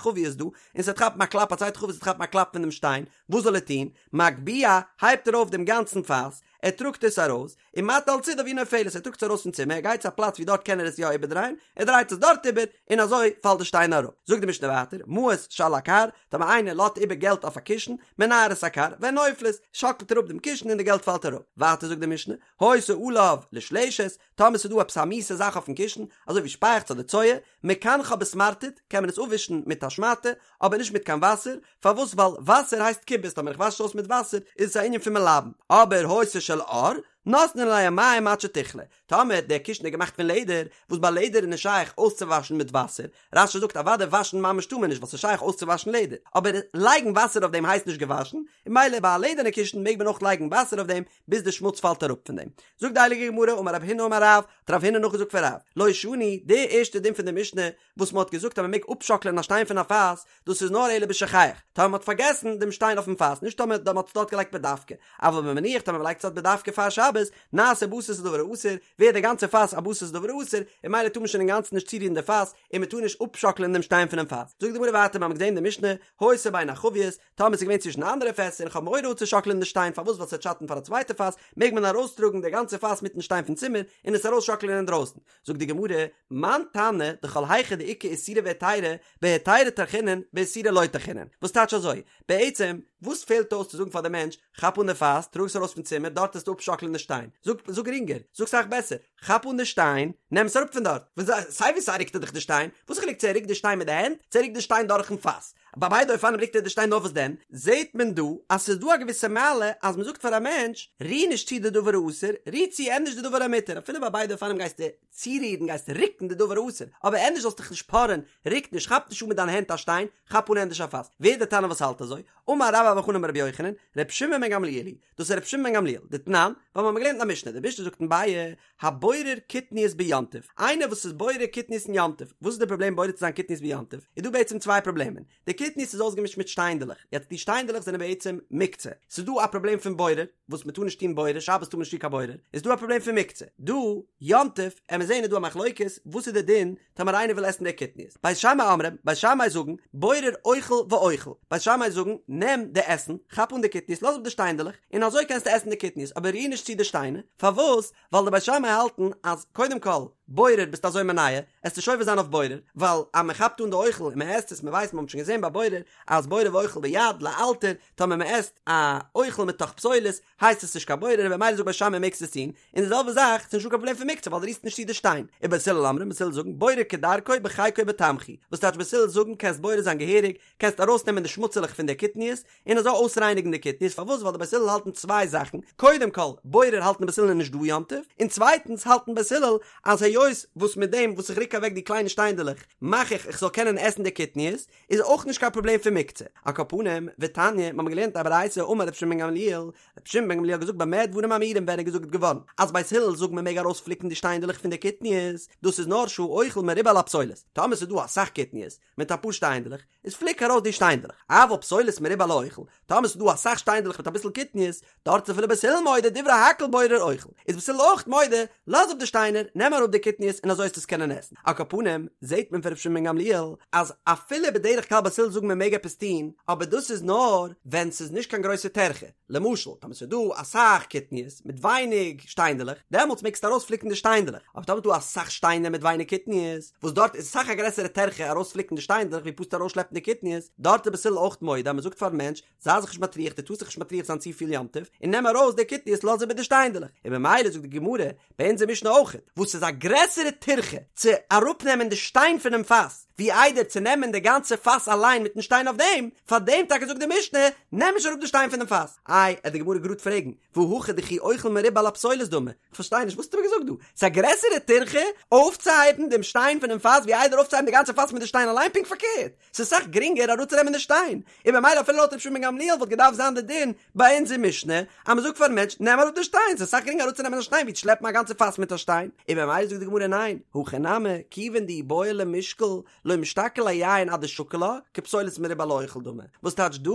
חביות דא, און ס'וועט כאפן א קלאפ, א צווייטע חבית וועט כאפן א קלאפ פון דעם שטיין, וואס זאל ער טון? מגביה, הייבט ער אויף דעם גאנצן פאס, ער טראגט עס ארויס, ומטה על צידה והיא נופלת, ער טראגט עס ארויס פון צימער, ער גייט צו א פלאץ ווי דארט קען ער עס יא איבערדרייען, ער דרייט עס דארט איבער, און אזוי פאלט די שטיין אראפ. זאגט די משנה ווייטער, מעות שעל הכר, טאמער איינער לאזט איבער געלט אויף א קישן, מנער את הכר, והן נופלות, שאקלט ער אפ דעם קישן און די געלט פאלט אראפ. ווייטער זאגט די משנה, היתה עליו לשלשת, טאמער ס'איז דא עפעס א מיאוסע זאך אויפן קישן, אזוי ווי שפייעכץ אדער צואה, מקנחה בסמרטוט, קען מען עס אפווישן מיט א שמאטע, אבער נישט מיט קיין וואסער, פארוואס ווייל וואסער הייסט כיבוס טאמער איך וואש עס אויס מיט וואסער איז עס א ענין פון מלבן, אבער היתה של עור, נותנין עליה מים עד שתכלה, טאמער דער קישן איז געמאכט פון לעדער, וואס ביי לעדער איז נישט שייך אויסצואוואשן מיט וואסער, רש"י זאגט אוודאי וואשן ממש טאר מען נישט ווייל ס'איז שייך אויסצואוואשן לעדער, אבער לייגן וואסער אויף דעם הייסט נישט געוואשן, און ממילא ביי א לעדערנע קישן מעג מען אויך לייגן וואסער אויף דעם ביז די שמוץ פאלט אראפ פון דעם. זאגט די הייליגע גמרא אמר רב הונא אמר רב, האט רב הונא נאכגעזאגט פון רב, לא שנו, די ערשטע דין פון די משנה וואס מען האט געזאגט אז מען מעג אפשאקלען א שטיין פון א פאס, דאס איז נאר אלא בשוכח, טאמער מען האט פארגעסן דעם שטיין אויפן פאס, נישט טאמער מען האט עס דארט געלייגט בדווקא, אבל במניח טאמער מען לייגט עס דארט בדווקא פאר שבת, נעשה בסיס לדבר האסור, ווערט דער גאנצער פאס א בסיס לדבר האסור, און ממילא טאר מען שוין אינגאנצן נישט צורירן די פאס, און מען טאר נישט אפשאקלען דעם שטיין פונעם פאס. זאגט די גמרא ווייטער, מיר האבן געזען אין די משנה, היתה בין החביות, טאמער עס איז געווען צווישן אנדערע פעסער און כ'האב מורא אפצושאקלען די שטיין פארוואס ווייל ס'וועט שאטן פאר א צווייטע פאס, מעג מען ארויסטראגן די גאנצע פאס מיטן שטיין פון צימער און עס ארויסשאקלען אינדרויסן. זאגט די גמרא, מאן תנא דכל היכא דאיכא איסורא והיתרא, בהיתרא טרחינן באיסורא לא טרחינן. וואס טייטש אזוי? בעצם, וואס פעלט אויס צו זאגן פאר די מענטש, כאפ אן די פאס, טראג עס ארויס פון צימער, דארט וועסטו אפשאקלען די שטיין. זאג, זאג גרינגער, זאג סאך בעסער, כאפ אן די שטיין, נעם עס אראפ פון דארט. סיי ווי סיי רוקט ער דאך די שטיין, וואס איז חילוק צו ער רוקט די שטיין מיט די הענט, צו ער רוקט די שטיין דורכן פאס. ביי ביידע אופנים רוקט ער די שטיין נאר וואס דען זעהט מען דא אז ס'איז דא א געוויסע מעלה אז מ'זאגט פאר א מענטש ריר נישט צו די דבר האסור ריר צו ענדערש די דבר המותר אפילו ביי ביידע אופנים גייסטו צורירן גייסטו רוקן די דבר האסור אבער ענדערש זאלסט דיך נישט פארען רוק נישט כאפ נישט אן מיט דיינע הענט א שטיין כאפ אן ענדערש א פאס ווער איז די תנא וואס האלט אזוי? אמר רבה בר בר חנה אמר רבי יוחנן ר' שמעון בן גמליאל היא דאס איז ר' שמעון בן גמליאל דתנן ווייל מ'האמיר געלערנט אין א משנה די משנה זאגט אין ביעא הבורר קטניות ביום טוב, איינער וואס איז בורר קטניות אין יום טוב, וואס איז די פראבלעם בורר צו זיין קטניות ביום טוב? איז דא בעצם צוויי פראבלעמען, די קטניות איז אויסגעמישט מיט שטיינדעלעך, יעצט די שטיינדעלעך זענען בעצם מוקצה, ס'איז דא א פראבלעם פון בורר, וואס מ'טאר נישט טון בורר, שבת טאר מען נישט טון קיין בורר, איז דא א פראבלעם פון מוקצה, דא יום טוב, עמיר זעהן איז דא א מחלוקת, וואס איז די דין טאמער איינער וויל עסן די קטניות, בית שמאי אומרים, בית שמאי זאגן, בורר אוכל ואוכל, בית שמאי זאגן, נעם די עסן, כאפ אן די קטניות, לאז אפ די שטיינדעלעך, און אזוי קענסטו עסן די קטניות, אבער ריר נישט צו די שטיינער, פארוואס? ווייל די בית שמאי האלטן אז קודם כל, בורר ביסט אזוי מונע, עסט נישט עובר זיין אויף בורר, ווייל אז מען כאפט אן די אוכל און מען עסט עס, מען ווייסט, מען האט שוין געזען ביי בורר, אז בורר ואוכל ביד, לאלתר, טאמער מען עסט א אוכל מתוך פסולת, הייסט עס נישט קיין בורר, און במילא זאגט בית שמאי מעגסט עס טון, און די זעלבע זאך, ס'איז נישטא קיין פראבלעם פון מוקצה ווייל דו רירסט נישט צו די שטיין. ובית הלל אומרים, בית הלל זאגן, בורר כדרכו בחיקו בתמחוי, וואס טייטש בית הלל זאגן קענסט בורר זיין געהעריג, קענסט ארויסנעמען די שמוצעלעך פון די קטניות, און אזוי אויסרייניגן די קטניות, פארוואס? ווייל די בית הלל האלטן צוויי זאכן, קודם כל, בורר האלטן בית הלל איז נישט דא יום טוב, און צווייטנס האלטן בית הלל אז היות וואס מיט דעם וואס איך רוק אוועק די קליינע שטיינדעלעך מאך איך איך זאל קענען עסן די קטניות, איז אויך נישט קיין פראבלעם פון מוקצה. על כל פנים, ותניא, מ'האמיר געלערנט א ברייתא אמר רבי שמעון בן גמליאל, רבי שמעון בן גמליאל האט געזאגט במה דברים אמורים ווען איז געזאגט געווארן אז בית הלל זאגן מ'מעג ארויספליקן די שטיינדעלעך פון די קטניות, דאס איז נאר שהאוכל מרובה על הפסולת, טאמער ס'איז דא אסאך קטניות, מיט אפאר שטיינדלעך, איז פליק ארויס די שטיינדלעך, אבל פסולת מרובה על האוכל, טאמער ס'איז דא אסאך שטיינדלעך מיט אביסל קטניות, דארט איז אפילו בית הלל מודה דברי הכל בורר אוכל, איז בית הלל אויך מודה, לאז אפ די שטיינער, נעם אראפ די קטניות און אזוי וועסטו עס קענען עסן. על כל פנים, זעט מען פון ר' שמעון בן גמליאל, אז אפילו בדרך כלל בית הלל זאגן מען מעג עפעס טון, אבער דאס איז נאר ווען ס'איז נישט קיין גרויסע טרחה, למשל, טאמער ס'איז דא אסאך קטניות מיט ווייניג שטיינדלעך, דעמאלטס מעגסטו ארויספליקן די שטיינדלעך, אבער טאמער איז דא אסאך שטיינער מיט ווייניג קטניות, וואס דארט איז אסאך א גרעסערע טרחה ארויספליקן די שטיינדלעך ווי פשוט ארויסשלעפן די קטניות, דארט איז בית הלל אויך מודה אז מ'זאגט פארן מענטש, זיי זיך נישט מטריח, דו טארסט זיך נישט מטריח זיין צופיל יום טוב, און נעם ארויס די קטניות לאז איבער די שטיינדלעך, און ממילא זאגט די גמרא, ביי אונזער משנה אויכעט, וואס איז א גרעסערע טירחה צו אראפנעמען די שטיין פונעם פאס, ווי איידער צו נעמען די גאנצע פאס אליין מיטן שטיין אויף דעם, פאר דעם טאקע זאגט די משנה, נעם נישט אראפ די שטיין פונעם פאס. איי, עט די גמרא גראד פרעגן, והא הכא דכי אוכל מרובה על הפסולת דמי, כ'פארשטיי נישט, וואס האסטו מיר געזאגט דא? ס'איז א גרעסערע טירחה אויפצוהייבן דעם שטיין פונעם פאס ווי איידער אויפצוהייבן די גאנצע פאס מיט די שטיין אליין? פונקט פארקערט, ס'איז אסאך גרינגער אראפצונעמען די שטיין, און במילא אפילו לויט רבי שמעון בן גמליאל וואלט געדארפט זיין די דין ביי אונזער משנה אז מ'זאגט פארן מענטש נעם אראפ די שטיין, ס'איז אסאך גרינגער אראפצונעמען א שטיין ווי צו שלעפן א גאנצע פאס מיט א שטיין, און במילא זאגט די גמרא ניין, הכא נמי, כיוון דאי בעי למישקל לא משתקיל ליה יין עד דשקיל לה, כפסולת מרובה על האוכל דמי. וואס טייטש דא,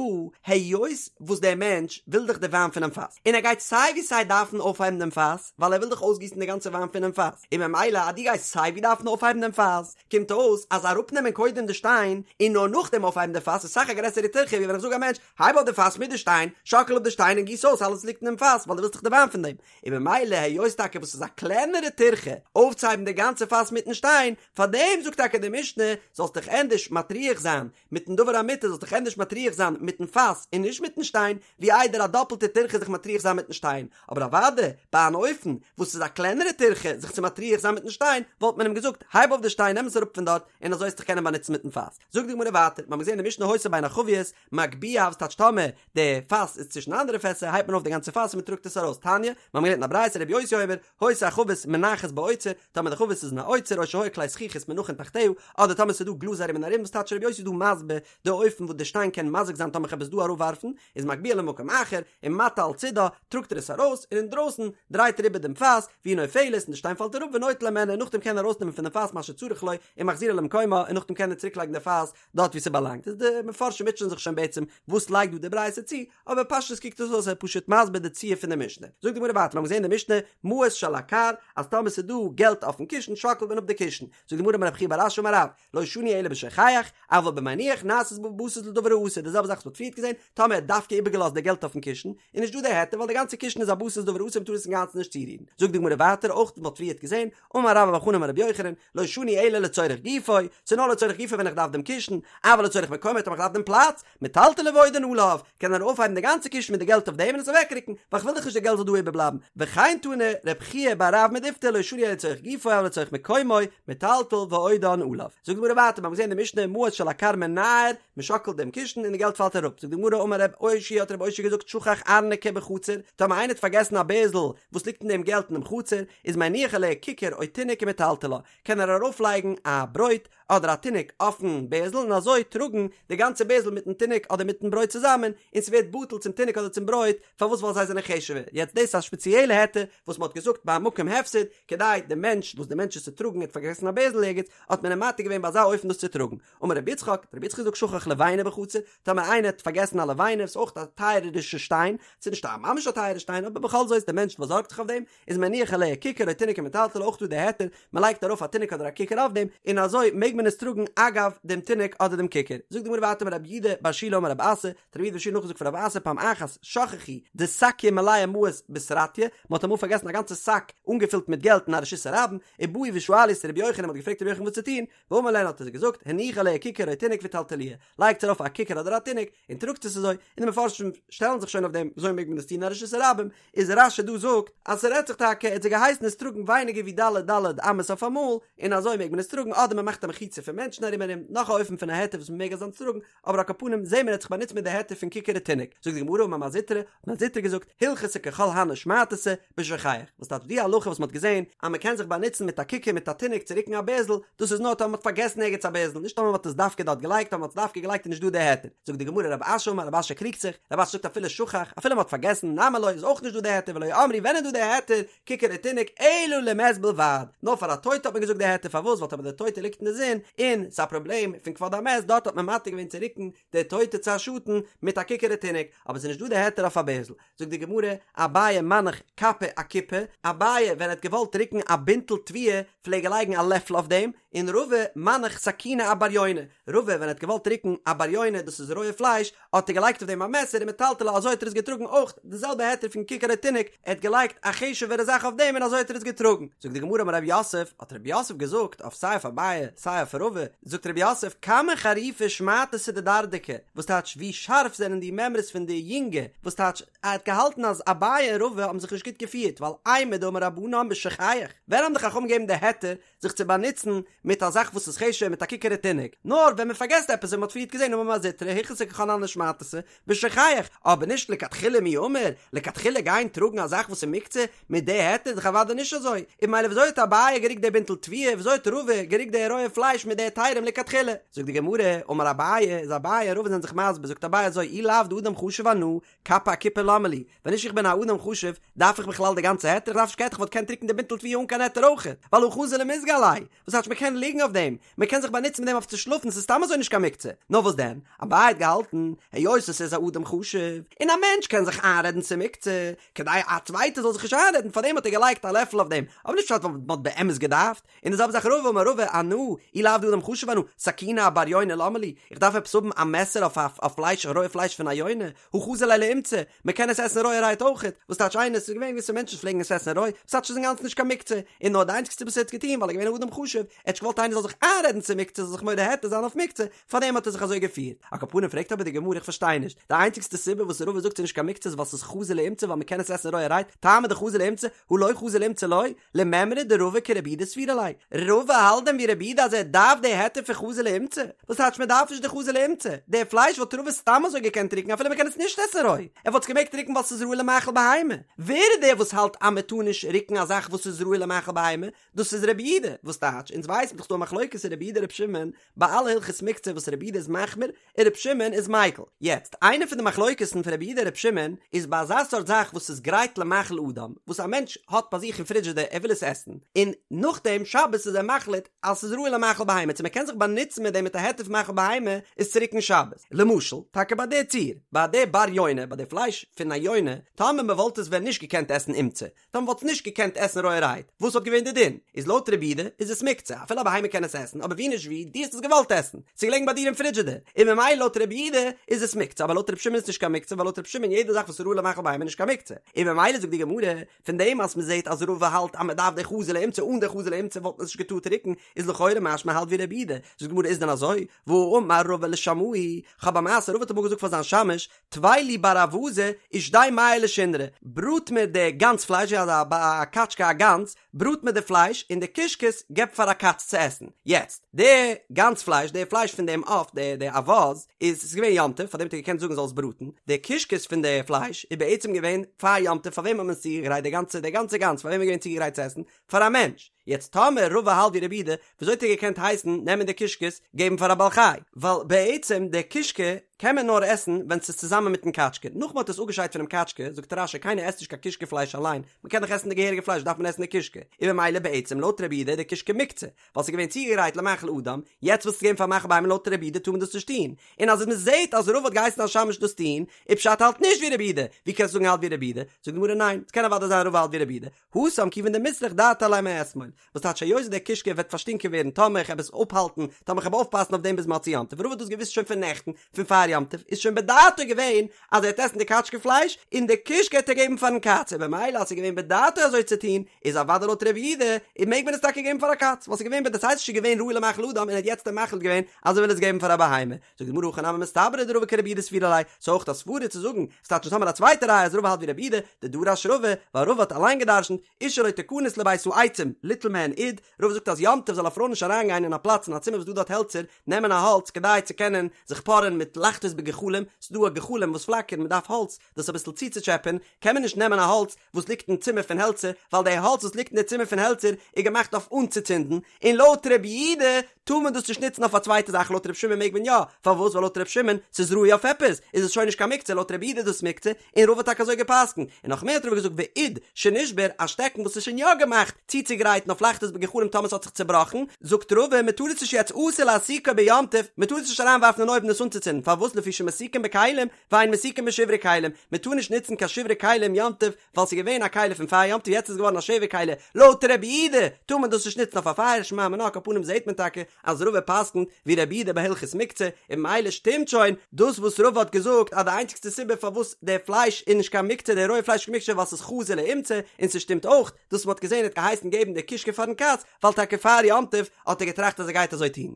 היות וואס דער מענטש וויל דאך די וויין פונעם פאס, און ער גייט סיי ווי סיי דארפן אויפהייבן דעם פאס, ווייל ער וויל דאך אויסגיסן די גאנצע וויין פונעם פאס, און ממילא אז דו גייסט סיי ווי דארפן אויפהייבן דעם פאס, קומט אויס אז אראפנעמען קודם די שטיין און נאר נאכדעם אויפהייבן די פאס איז אסאך א גרעסערע טירחה ווי ווען איך זאג א מענטש, הייב אויף די פאס מיט די שטיין, שאקל אפ די שטיין און גיס אויס אלעס וואס ליגט אינעם פאס, ווייל דו ווילסט דאך די וויין פון דעם. און ממילא היות טאקע וואס איז א קלענערע טירחה אויפצוהייבן די גאנצע פאס מיטן שטיין, פארדעם זאגט טאקע די משנה, זאלסט דיך ענדערש מטריח זיין מיטן דבר המותר, זאלסט דיך ענדערש מטריח זיין מיטן פאס און נישט מיטן שטיין, ווי איידער א דאפלטע טירחה זיך מטריח זיין מיטן שטיין. אבער אוודאי, ביי אן אופן וואס איז א קלענערע טירחה זיך צו מטריח זיין מיטן שטיין, וואלט מען אים געזאגט, הייב אויף די שטיין, נעם עס אראפ פון דארט, און אזוי וועסט דיך קענען באנוצן מיטן פאס. זאגט די גמרא ווייטער, מיר האבן געזען אין די משנה היתה בין החביות, מגביה וואס טייטש טאמער די פאס איז צווישן אנדערע פעסער הייבט מען אויף די גאנצע פאס און מען טראגט עס ארויס תניא, מיר האבן געלערנט אין א ברייתא רבי יוסי אומר, היתה החבית מונחת באוצר, טאמער די חבית איז אין א אוצר או שהיו כלי זכוכית מונחין תחתיה, אדער טאמער ס'איז דא גלאז ארום און ארום וואס טייטש רבי יוסי איז דא מסביר די אופן וואס די שטיין קען מזיק זיין טאמער כ'האב עס דא אראפווארפן, איז מגביה למקום אחר, ומטה על צידה, טראגט ער עס ארויס, און אינדרויסן דרייט ער איבער דעם פאס, והיא נופלת, און די שטיין פאלט אראפ ונוטל הימנה און נאכדעם קען ער ארויסנעמען פון דעם פאס מה שצריך לו, ומחזירה למקומה, און נאכדעם קען ער צוריקלייגן די פאס דארט וואו ס'באלאנגט איז די מפרשים מוטשען זיך שוין בעצם וואס לייגט דא די ברייתא צו, אבער פשטות קוקט עס אויס ער איז פשוט מסביר די ציור פון די משנה. זאגט די גמרא ווייטער, מיר האבן געזען אין די משנה מעות שעל הכר, אז טאמער ס'איז דא געלט אויפן קישן שאקלט מען אפ די קישן, זאגט די גמרא אמר רב חייא בר אשי אמר רב, לא שנו אלא בשוכח, אבל במניח נעשית בבסיס לדבר האסור, די זעלבע זאך וואס מ'האט פריערט געזען, טאמער ער האט דווקא איבערגעלאזט די געלט אויפן קישן, איז נישט דא די היתר ווייל די גאנצע קישן איז א בסיס לדבר האסור מ'טאר עס אינגאנצן נישט צורירן. זאגט די גמרא ווייטער אויך וואס מ'האט פריערט געזען, אמר רבה בר חנה אמר רבי יוחנן, לא שנו אלא לצורך גופו, ס'איז נאר לצורך גופו ווען איך דארף דעם קישן, אבל לצורך מקומו טאמער איך דארף דעם פלאץ, מטלטלו ועודן עליו, קען ער אויפהייבן די גאנצע קישן מיט די געלט אויף דעם און עס אוועקרוקן, ווייל כ'וויל דאך נישט די געלט זאל דא איבערבלייבן, וכן תנא רב חייא בר רב מדיפתי לא שנו אלא לצורך גופו אבל לצורך מקומו, מטלטל ועודן עליו. זאגט די גמרא ווייטער, מיר האבן געזען אין די משנה מעות שעל הכר מנער, מען שאקלט דעם קישן און די געלט פאלט אראפ, זאגט די גמרא אמר רב אושעיא האט רב אושעיא געזאגט שכח ארנקי בחצר, טאמער איינער האט פארגעסן א בערזל וואס ליגט אין דעם געלט אינעם חצר, איז מניח עליה כיכר או תינוק ומטלטלה, קען ער ארויפלייגן א ברויט אדער א תינוק אויפן בערזל און אזוי טראגן די גאנצע בערזל מיטן תינוק אדער מיטן ברויט צוזאמען, און ס'ווערט בטל צום תינוק אדער צום ברויט, פארוואס ווייל זיי זענען חשוב'ער, יעצט דאס איז א שפעציעלע היתר וואס מ'האט געזאגט ביי א מקום הפסד, כדי די מענטש וואס די מענטש איז צו טראגן האט פארגעסן א בערזל ערגעץ, האט מען אים מתיר געווען ביי אזא אופן דאס צו טראגן. אמר רבי יצחק, האט רבי יצחק געזאגט שכח לבינה בחצר, טאמער איינער האט פארגעסן א לבינה, ס'איז אויך א טייערערישע שטיין, ס'איז נישט א ממש א טייערע שטיין, אבער בכל זאת דער מענטש באזארגט זיך אויף דעם, איז מניח עליה כיכר או תינוק ומטלטלה אויך דא די היתר, מען לייגט ארויף א תינוק אדער א כיכר אויף דעם, און אזוי מעג מען עס טראגן אגב דעם תינוק אדער דעם כיכר. זאגט די גמרא ווייטער אמר רב יהודה בר שילא אמר רב אסי, האט רב יהודה בר שילא נאכגעזאגט פון רב אסי פעם אחת שכחו דסקיא מלאה מעות בסרטיא, מען האט אמאל פארגעסן א גאנצע שק אנגעפילט מיט געלט אין א רשות הרבים, ובאו ושאלו את רבי יוחנן, מען האט געפרעגט רבי יוחנן וואס צו טון, ואמר להן האט ער זיי געזאגט, הניחו עליה כיכר או תינוק וטלטלוה, לייגטס ארויף א כיכר אדער א תינוק, און טראגטס עס אזוי, און די מפרשים שטעלן זיך שוין אויף דעם, וויאזוי מעג מען עס טון אין א רשות הרבים, איז רש"י דא זאגט, אז ס'רעדט זיך טאקע, ער האט זיי געהייסן עס טראגן ווייניגער ווי ד' ד' אמות אויף אמאל, און אזוי מעג מען עס טראגן, אדער מען מאכט א מחיצה פון מענטשן ארום ארום, נאך א אופן פון א היתר וואס מען מעג אזאנס טראגן, אבער על כל פנים זעהן מיר ער האט זיך באנוצט מיט די היתר פון כיכר ותינוק, זאגט די גמרא אמר מר זוטרא, האט מר זוטרא געזאגט, הלכתא ככל הני שמעתתא, בשוכח, וואס טייטש די הלכה וואס מען האט געזעהן אז מען קען זיך באנוצן מיט א כיכר מיט א תינוק צו רוקן א בערזל, דאס איז נאר טאמער מען האט פארגעסן ערגעץ א בערזל, נישט טאמער מען האט עס דווקא דארט געלייגט, טאמער מען האט עס דווקא געלייגט איז נישט דא די היתר, זאגט די גמרא רב אשי אמר רב אשי קריגט זיך, רב אשי זאגט אפילו שכח, אפילו מען האט פארגעסן, נמי לא איז אויך נישט דא די היתר ולא אמרו ווען איז דא די היתר, כיכר ותינוק אלא למת בלבד, נאר פאר א טויטע האט מען געזאגט די היתר פארוואס ווייל טאמער די טויטע ליגט אין די זון און ס'איז א פראבלעם פון כבוד המת דארט האט מען מתיר געווען צו רוקן די טויטע צו א שאטן מיט א כיכר ותינוק אבער ס'איז נישט דא די היתר אויף א בערזל זאגט די גמרא אביי מנח כפא אכיפי אביי ווען ער האט געוואלט רוקן א בינטל תבואה פלעג ער לייגן א לעפל אויף דעם און רבא מנח סכינא אבריוני רבא ווען ער האט געוואלט רוקן א בריונה דאס איז רויע פלייש האט ער געלייגט אויף דעם א מעסער ומטלטלה אזוי האט ער עס געטראגן אויך די זעלבע היתר פון כיכר ותינוק ער האט געלייגט א חשוב'ערע זאך אויף דעם און אזוי האט ער עס געטראגן זאגט די גמרא אמר רב יוסף האט רב יוסף געזאגט אויף סיי אויף אביי סיי אויף. אויף רבא, זאגט רב יוסף, כמה חריפה שמעתתא דדרדקי, וואס טייטש ווי שארף זענען די מימרות פון די יונגע, וואס טייטש ער האט געהאלטן אז אביי און רבא האבן זיך נישט גוט געפירט, ווייל אימור דאמור רבנן בשוכח, ווען האבן די חכמים געגעבן די היתר זיך צו באנוצן מיט א זאך וואס איז חשוב מיט א ככר התינוק, נאר ווען מען פארגעסט עפעס ווי מען האט פריערט געזען אמר מר זוטרא הלכתא ככל הני שמעתתא בשוכח, אבער נישט לכתחילה מי אמור, לכתחילה גיין טראגן א זאך וואס איז מוקצה מיט די היתר איז דאך אוודאי נישט אזוי, און ממילא וויאזוי האט אביי גערוקט די בינטל תבואה, וויאזוי האט רבא גערוקט די רויע פלייש מיט די היתרים לכתחילה? זאגט די גמרא, אמר אביי, איז אביי און רבא זענען זיך מסביר, זאגט אביי אזוי, אי לאו דאדם חשוב אנא, כפה אכיפה למה לי, ווען נישט איך בין א אדם חשוב, דארף איך בכלל די גאנצע היתר? איך דארף נישט קיין היתר, איך וואלט געקענט רוקן די בינטל תבואה אן קיין היתר אויכעט, ווייל הא חזי למיזגא עליה, וואס טייטש מען קען ליגן אויף דעם, מען קען זיך באנוצן מיט דעם אויף צו שלאפן, ס'איז סתם אזוי נישט קיין מוקצה. נאר וואס דען? אביי האט געהאלטן, היות עס איז א אדם חשוב, און א מענטש קען זיך איינרעדן ס'איז מוקצה, כדי א צווייטער זאל זיך נישט איינרעדן, פארדעם האט ער געלייגט א לעפל אויף דעם, אבער נישט פשט ווייל מען האט באמת געדארפט. און די זעלבע זאך רבא אמר רבא אנא, אי לאו דאדם חשוב אנא, סכינא אבר יונה למה לי, איך דארף עפעס האבן א מעסער אויף אויף פלייש רויע פלייש פון א יונה, הא חזי ליה לאומצא, מען קען עס עסן רויערהייט אויכעט, וואס טייטש איינער, ס'איז געווען געוויסע מענטשן וואס פלעגן עס עסן רוי, וואס טייטש ס'איז אינגאנצן נישט קיין מוקצה, און נאר די איינציגסטע וואס ער האט געטון ווייל ער איז געווען א אדם חשוב, ער האט נישט געוואלט איינער זאל זיך איינרעדן ס'איז מוקצה זאל זיך מורה היתר זיין אויף מוקצה, פארדעם האט ער זיך אזוי געפירט. על כל פנים פרעגט אבער די גמרא איך פארשטיי נישט, די איינציגסטע סיבה וואס רבא זאגט ס'איז נישט קיין מוקצה איז ווייל ס'איז חזי לאומצא ווייל מען קען עס עסן רויערהייט, טעמא דחזי לאומצא, הא לא חזי לאומצא לא, למימרא דרבא כרבי יהודה סבירא ליה, רבא האלט דען ווי רבי יהודה אז ער דארף די היתר פון חזי לאומצא? וואס טייטש מען דארף נישט די חזי לאומצא? די פלייש וואלט רבא סתם אזוי געקענט רוקן אפילו מען קען עס נישט עסן רוי, ער וואלט עס געמעגט רוקן ווייל ס'איז ראוי למאכל בהמה, ווער איז דער וואס האלט אז מען טאר נישט רוקן א זאך וואס איז ראוי למאכל בהמה? דאס איז רבי יהודה, וואס טייטש? אונז ווייסן דאך ס'דא א מחלוקת אין רבי יהודה רבי שמעון ביי אלע הלכות מוקצה וואס רבי יהודה איז מחמיר און רבי שמעון איז מיקל. יעצט, איינע פון די מחלוקת'ן פון רבי יהודה און רבי שמעון איז ביי אזא סארט זאך וואס איז גרייט למאכל אדם, וואס א מענטש האט ביי זיך אין פרידזשידער ער וויל עס עסן, און נאכדעם שבת איז ער מחליט אז ס'איז ראוי למאכל בהמה, צו מ'קען זיך באנוצן מיט דעם מיט א היתר פון מאכל בהמה איז צו רוקן שבת. למשל, טאקע ביי די ציור, ביי די בר יונה, ביי די פלייש פון א יונה, טאמער מ'וואלט עס ווען נישט געקענט עסן אומצא, טאמער מ'וואלט עס נישט געקענט עסן רויערהייט, וואס וואלט געווען די דין? איז לויט רבי יהודה איז עס מוקצה, אפילו א בהמה קען עס עסן, אבער ווי נישט ווי, דו האסט עס געוואלט עסן, ס'איז געלעגן ביי דיר אין פרידזשידער, און ממילא לויט רבי יהודה איז עס מוקצה, אבער לויט רבי שמעון איז נישט קיין מוקצה, ווייל לויט רבי שמעון יעדע זאך וואס איז ראוי למאכל בהמה איז נישט קיין מוקצה, און ממילא זאגט די גמרא, פון דעם אז מ'זעט אז רבא האלט אז מ'דארף די חזי לאומצא, אן די חזי לאומצא וואלט מען עס נישט געטארט רוקן, איז לכאורה משמע האלט ווי רבי יהודה, זאגט די גמרא איז דען אזוי? והאמר רבא לשמעיה, כ'האב א מעשה, רבא האט אמאל געזאגט פאר זיין שמש, טוי לי בר אווזא ושדי מיא לשונרא, בראט מיר די גאנז פלייש ווי אזא א קאטשקע א גאנז, בראט מיר די פלייש און די קישקעס געב פאר א קאץ צו עסן. יעצט, די גאנז פלייש, די פלייש פון דעם עוף, די די אווז, איז ס'איז געווען יום טוב, פארדעם האט ער געקענט זאגן זאל עס בראטן, די קישקעס פון די פלייש איז בעצם געווען פאר יום טוב, פאר וועם האט מען עס צוגעגרייט די גאנצע די גאנצע גאנז, פאר וועם איז געווען צוגעגרייט צו עסן? פאר א מענטש. יעצט טאמער רבא האלט ווי רבי יהודה, וויאזוי האט ער געקענט הייסן נעמען די קישקעס געבן פאר א בעל חי? ווייל בעצם די קישקע קען מען נאר עסן ווען ס'איז צוזאמען מיטן קאטשקע, נאך מ'האט עס אפגעשיידט פונעם קאטשקע, זאגט רש"י קיינער עסט נישט קיין קישקע פלייש אליין, מ'קען דאך עסן די געהעריגע פלייש דארף מען עסן די קישקע, און ממילא בעצם לויט רבי יהודה איז די קישקע מוקצה, ווייל ס'איז געווען צוגעגרייט למאכל אדם, יעצט ווילסטו געבן פאר מאכל בהמה לויט רבי יהודה טאר מען דאס נישט טון, און אז מ'זעט אז רבא האט געהייסן א שמש דאס טון, איז פשט האלט נישט ווי רבי יהודה, ווי קענסטו זאגן האלט ווי רבי יהודה? זאגט די גמרא ניין, ס'קען אוודאי זיין רבא האלט ווי רבי יהודה, התם כיוון דמיסרך דעתיה עליה מאתמול, וואס טייטש היות דער קישקע וועט פארשטינקען ווערן טאמער איך העב עס אפהאלטן, טאמער איך העב אויפפאסן אויף דעם ביז מוצאי יום טוב, רבא האט דאס געוואוסט שוין פון נעכטן, פון פאר יום טוב, איז שוין בדעתו געווען אז ער העט עסן די קאטשקע פלייש, און די קישקע העט ער געבן פארן קאץ, און במילא אז ס'איז געווען בדעתו אזוי צו טון, איז אוודאי לויט רבי יהודה, און מעג מען עס טאקע געבן פאר א קאץ, ווייל ס'איז געווען בדעתו ס'איז שוין געווען ראוי למאכל אדם און ער האט יעצט מחליט געווען אז ער וויל עס געבן פאר א בהמה. זאגט די גמרא הכי נמי מסתברא דרבא כרבי יהודה סבירא ליה, ס'איז אויך א סברא צו זאגן, ס'טייטש אונז האמיר א צווייטע ראיה אז רבא האלט ווי רבי יהודה, דדרש רבא, ווייל רבא האט אליין געדרשנט, אשה לא תכנס לבית העצים, ליטול מהן אוד, רבא זאגט אז יום טוב זאל א פרוי נישט אריינגיין אין א פלאץ אין א צימער וואס דא דארט העלצער, נעמען א האלץ כדי צו קענען זיך פארען מיט לחתות בגחלים, ס'איז דא א גחלים וואס פלאקערן מען דארף האלץ דאס אביסל צוצוטשעפען, קען מען נישט נעמען א האלץ וואס ליגט אין צימער פון העלצער, ווייל די האלץ וואס ליגט אין די צימער פון העלצער איז געמאכט אויף אנצוצינדן, און לויט רבי יהודה טאר מען דאס נישט נוצן אויף א צווייטע זאך לויט רבי שמעון מעג מען יא, פארוואס ווייל לויט רבי שמעון ס'איז ראוי אויף עפעס איז עס שוין נישט קיין מוקצה לויט רבי יהודה איז דאס מוקצה, און רבא האט טאקע אזוי געפסקנט, און נאך מער האט רבא געזאגט ואוד שנשבר א שטעקן וואס איז שוין יא געמאכט צוצוגרייטן אויף לחתות בגחלים טאמער ס'האט זיך צובראכן, זאגט רבא מען טאר עס נישט יעצט אסור להסיקו ביום טוב, מען טאר עס נישט אריינווארפן אין אויוון עס אנצוצינדן, פארוואס? פארוואס לפי שמסיקין בכלים ואין מסיקין בשברי כלים, מען טאר נישט נוצן קיין שברי כלים יום טוב ווייל ס'איז געווען א כלי פון פאר יום טוב יעצט איז געווארן א שבר כלי, לויט רבי יהודה טאר מען דאס נישט נוצן אויף א פייער שמע מינה על כל פנים זעהט מען טאקע אז רבא פסק'נט ווי רבי יהודה ביי הלכות מוקצה און ממילא שטימט שוין דאס וואס רבא האט געזאגט אז די איינציגסטע סיבה פארוואס די פלייש איז נישט קיין מוקצה די רויע פלייש איז קיין מוקצה ווייל ס'איז חזי לאומצא און ס'שטימט אויך דאס מ'האט געזעהן ער האט געהייסן געבן די קישקע פארן קאץ ווייל טאקע פאר יום טוב האט ער געטראכט אז ער גייט אזוי טון.